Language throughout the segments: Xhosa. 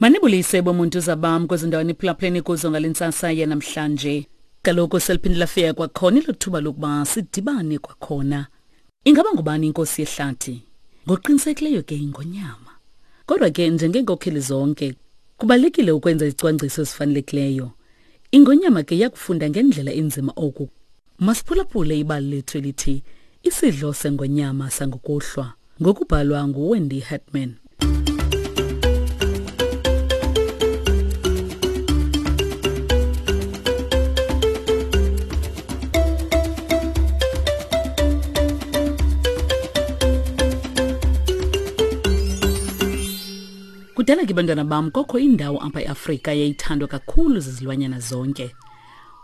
Manibulise bomuntu zabam kwezi ndawo niphulaphuleni kuzo ngale ntsasa yanamhlanje. Kaloku seliphinde lafika kwakhona elo thuba lokuba sidibane kwakhona. Ingaba ngubani inkosi yehlathi? Ngokuqinisekileyo ke ingonyama. Kodwa ke njengeenkokheli zonke, kubalulekile ukwenza izicwangciso ezifanelekileyo. Ingonyama ke yakufunda ngendlela enzima oku. Masiphulaphule ibali lethu elithi Isidlo sengonyama sangokuhlwa ngokubhalwa nguWendy Hartman. Kudala ke bantwana bam kokho indawo apha eAfrika yayithandwa kakhulu zizilwanyana zonke.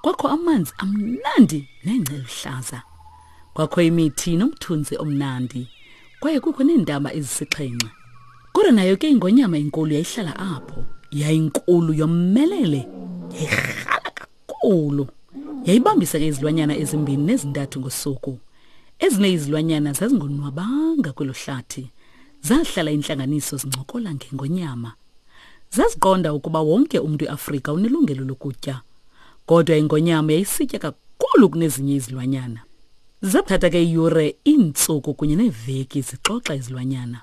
Kwakho amanzi amnandi nengca eluhlaza. Kwakho imithi nomthunzi omnandi. Kwaye kukho neentaba ezisixhenxe. Kodwa nayo ke ingonyama enkulu yayihlala apho. Yayinkulu yomelele. Yayirhala kakhulu. Yayibambisa ke izilwanyana ezimbini nezintathu ngosuku. Ezinye izilwanyana zazingonwabanga kwelo hlathi. Zahlala intlanganiso zincokola ngengonyama. Zaziqonda ukuba wonke umntu eAfrika unelungelo lokutya. Kodwa ingonyama yayisitya kakhulu kunezinye izilwanyana. Zathatha ke iiyure, iintsuku kunye neeveki zixoxa izilwanyana.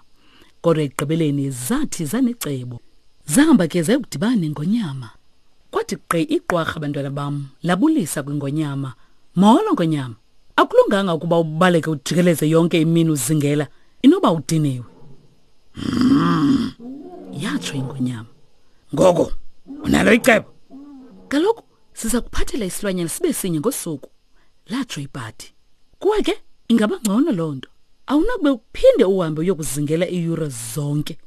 Kodwa ekugqibeleni zathi zanecebo. Zahamba ke zayokudibana nengonyama. Kwathi gqi iqwarha bantwana bam labulisa kwingonyama. Molo ngonyama. Akulunganga ukuba ubaleke ujikeleze yonke imini uzingela. Inoba udiniwe. Mm. Yatsho ingonyama. Ngoko unalo icebo? Kaloku siza kuphathela isilwanyana sibe sinye ngosuku. Latsho ibhadi. Kuwe ke ingaba ngcono loo nto. Awunakube uphinde uhambe uyokuzingela iiyure zonke.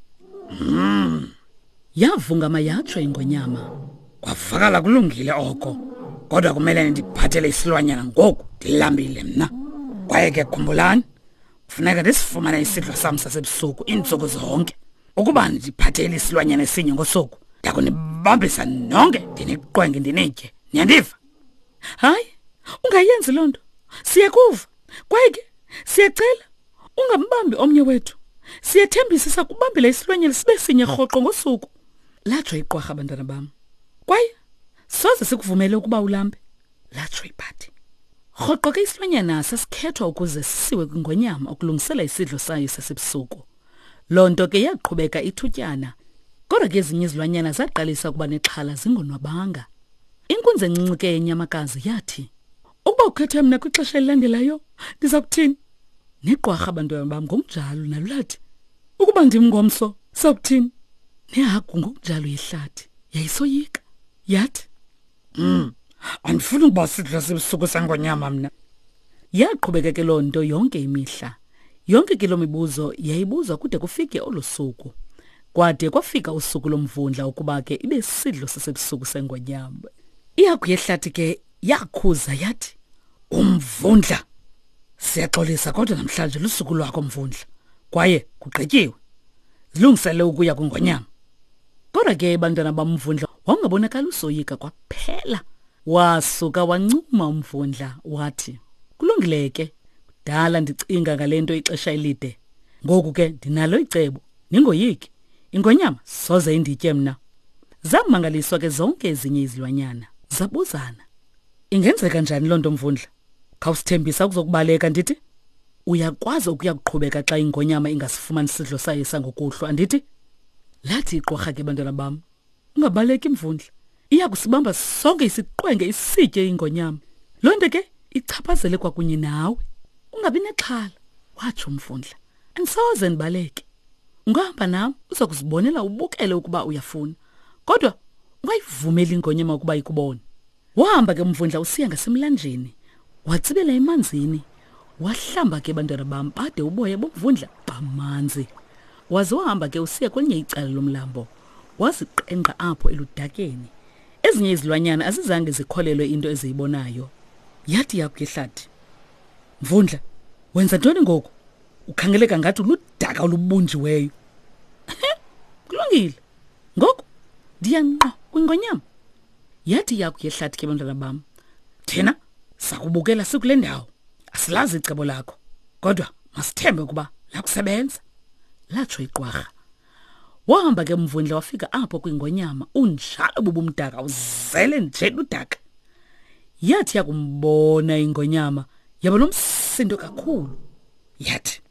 Mm. Yavungama yatsho ingonyama. Kwavakala kulungile oko. Kodwa kumele ndiphathele isilwanyana ngoku ndilambile mna. Kwaye ke khumbulani Funeka ndisifumane isidlo sam sasebusuku iintsuku zonke. Ukuba ndiphathele isilwanyana esinye ngosuku, ndakunibambisa nonke ndiniqwenge ndinitye. Niyandiva? Hayi, ungayenzi loo nto. Siyakuva. Kwaye ke siyacela ungambambi omnye wethu. Siyathembisa sakubambela isilwanyana sibe sinye rhoqo ngosuku. Latsho iqwarha bantwana bam. Kwaye soze sikuvumele ukuba ulambe. Latsho ibhadi. Rhoqo ke isilwanyana sasikhethwa ukuze sisiwe kwingonyama ukulungisela isidlo sayo sasebusuku. Loo nto ke yaqhubeka ithutyana. Kodwa ke ezinye izilwanyana zaqalisa ukuba nexhala zingonwabanga. Inkunzi encinci ke yenyamakazi yathi, Ukuba ukhethe mna kwixesha elilandelayo, ndiza kuthini? Neqwarha abantwana bam ngokunjalo nalo lathi, Ukuba ndim ngomso, sakuthini? Nehagu ngokunjalo yehlathi yayisoyika. Yathi, Mm. Andifuni ukuba sidlo sebusuku sengonyama mna. Yaqhubeka ke loo nto yonke imihla. Yonke ke loo mibuzo yayibuzwa kude kufike olo suku. Kwade kwafika usuku lomvundla ukuba ke ibe sidlo sasebusuku sengonyama. Ihagu yehlathi ke yakhuza yathi, Umvundla! Siyaxolisa kodwa namhlanje lusuku lwakho mvundla. Kwaye kugqityiwe. Zilungisele ukuya kwingonyama. Kodwa ke bantwana bamvundla wawungabonakali usoyika kwaphela. Wasuka wancuma umvundla wathi, Kulungile ke, kudala ndicinga ngale nto ixesha elide. Ngoku ke ndinalo icebo, ningoyiki. Ingonyama soze inditye mna. Zamangaliswa ke zonke ezinye izilwanyana. Zabuzana, Ingenzeka njani loo nto mvundla? Khawusithembisa ukuzokubaleka ndithi? Uyakwazi ukuya kuqhubeka xa ingonyama ingasifumani isidlo sayo sangokuhlwa andithi? Lathi iqwarha ke bantwana bam, ungabaleki mvundla. Iya kusibamba sonke isiqwenge isitye ingonyama. Loo nto ke ichaphazele kwakunye nawe. Ungabi nexhala, watsho umvundla. Andisoze ndibaleke. Ungahamba nam uza kuzibonela ubukele ukuba uyafuna. Kodwa ungayivumeli ingonyama ukuba ikubone. Wahamba ke umvundla usiya ngasemlanjeni. Watsibela emanzini. Wahlamba ke bantwana bam bade uboya bomvundla bamanzi. Waze wahamba ke usiya kwelinye icala lomlambo. Waziqengqa apho eludakeni. Ezinye izilwanyana azizange zikholelwe into eziyibonayo. Yathi yakuyehlathi. Mvundla, wenza ntoni ngoku? Ukhangeleka ngathi uludaka olubunjiweyo. Kulungile. Ngoku ndiya ngqo kwingonyama. Yathi iyaku yehlathi ke bantwana bam. Thina sakubukela sikule ndawo. Asilazi icebo lakho. Kodwa masithembe ukuba lakusebenza. Latsho iqwarha. Wahamba ke umvundla wafika apho kwingonyama, unjalo bubumdaka uzele nje ludaka. Yathi yakumbona ingonyama yaba nomsindo kakhulu. Yathi,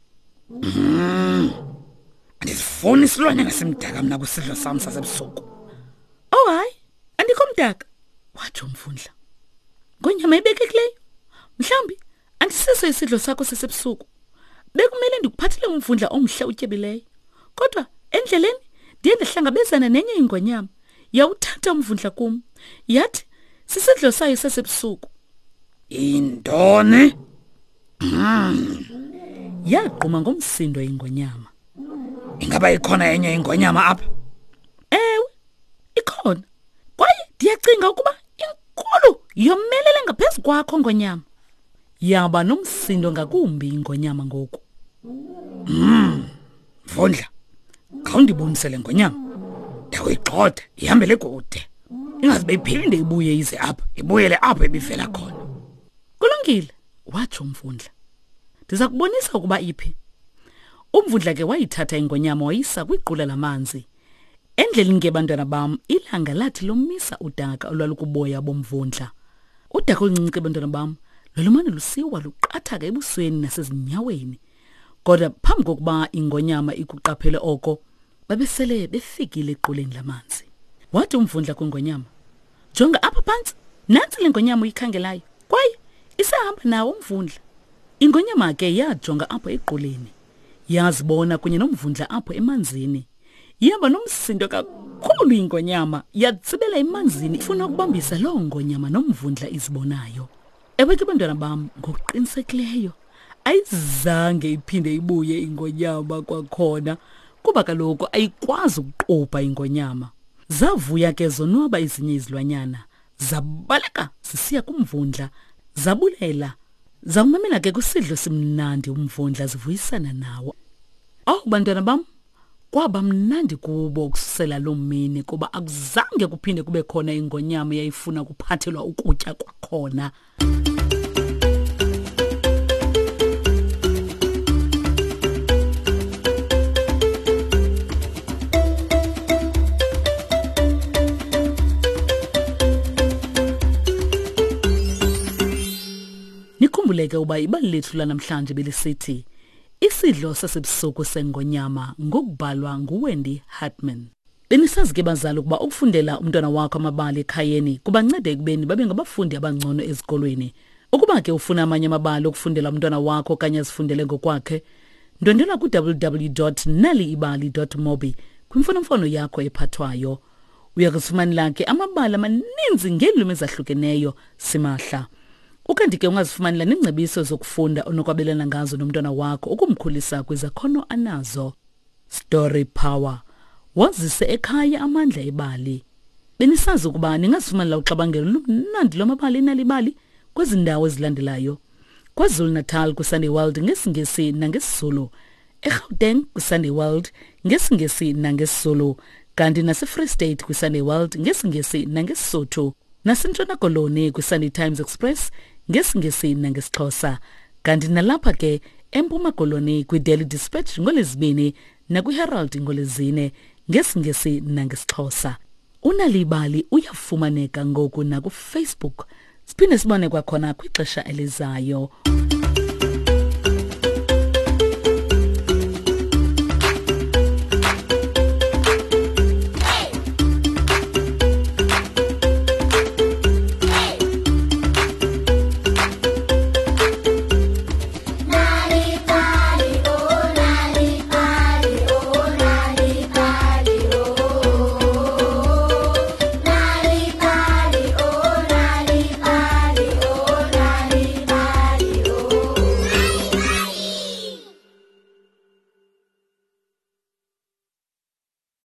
andisifuni isilwanyana simdaka mna kwisidlo sam sasebusuku. Oh hayi, andikho mdaka, watsho umvundla. Ngonyama ibekekileyo, mhlawumbi andisiso isidlo sakho sasebusuku. Bekumele ndikuphathele umvundla omhle utyebileyo. Kodwa endleleni ndiye ndahlangabezana nenye ingonyama. Yawuthatha umvundla kum. Yathi sisidlo sayo sasebusuku. Intoni? Yagquma ngomsindo ingonyama. Ingaba ikhona enye ingonyama apha? Ewe, ikhona. Kwaye ndiyacinga ukuba inkulu yomelele ngaphezu kwakho ngonyama. Yaba nomsindo ngakumbi ingonyama ngoku. Mvundla, khawundibonise le ngonyama. Ndakuyigxotha ihambele kude. Ingaze iphinde ibuye ize apha, ibuyele apho ibivela khona. Kulungile, watsho umvundla. Ndiza kubonisa ukuba iphi. Umvundla ke wayithatha ingonyama wayisa kwiqula lamanzi. Endleleni ke bantwana bam, ilanga lathi lomisa udaka olwalukuboya bomvundla. Udaka oluncinci ke bantwana bam, lwalumane lusiwa luqathaka ebusweni nasezinyaweni. Kodwa phambi kokuba ingonyama ikuqaphele oko, babesele befikile equleni lamanzi. Wathi umvundla kwingonyama, jonga apha phantsi, nantsi le ngonyama uyikhangelayo, kwaye isahamba nawo umvundla. Ingonyama ke yajonga apho equleni, yazibona kunye nomvundla apho emanzini. Yaba nomsindo kakhulu ingonyama, yatsibela emanzini ifuna ukubambisa loo ngonyama nomvundla izibonayo. Ewe ke bantwana bam, ngokuqinisekileyo ayizange iphinde ibuye ingonyama kwakhona, kuba kaloku ayikwazi ukuqubha ingonyama. Zavuya ke zonwaba ezinye izilwanyana, zabaleka zisiya kumvundla, zabulela, zawumamela ke kwisidlo simnandi umvundla zivuyisana nawo. Awu bantwana bam, kwaba mnandi kubo ukususela loo mini, kuba akuzange kuphinde kube khona ingonyama eyayifuna ukuphathelwa ukutya kwakhona. Nikhumbuleke uba ibali lethu lanamhlanje belisithi Isidlo sasebusuku sengonyama ngokubhalwa nguWendy Hartman. Benisazi ke bazali ukuba ukufundela umntwana wakho amabali ekhayeni kubanceda ekubeni babe ngabafundi abangcono ezikolweni. Ukuba ke ufuna amanye amabali okufundela umntwana wakho okanye azifundele ngokwakhe, ndwendwela ku-www.naliibali.mobi kwimfonomfono yakho ephathwayo. Uya kuzifumanela ke amabali amaninzi ngeelwimi ezahlukeneyo simahla. Ukanti ke ungazifumanela neengcebiso zokufunda onokwabelana ngazo nomntwana wakho ukumkhulisa kwizakhono anazo. Story Power. Wazise ekhaya amandla ebali. Benisazi ukuba ningazifumanela uxabangelo lumnandi lwamabali enalibali kwezi ndawo ezilandelayo. KwaZulu-Natal kwiSunday World ngesiNgesi nangesiZulu. eGauteng kwiSunday World ngesiNgesi nangesiZulu, kanti naseFree State kwiSunday World ngesiNgesi nangeSisotho, naseNtshona Koloni kwiSunday Times Express ngesiNgesi nangesiXhosa, kanti nalapha ke eMpuma Koloni kwiDaily Dispatch ngoLwezibini nakwiHerald ngoLwezine ngesiNgesi nangesiXhosa. Unalibali uyafumaneka ngoku nakuFacebook. Siphinde sibone kwakhona kwixesha elizayo.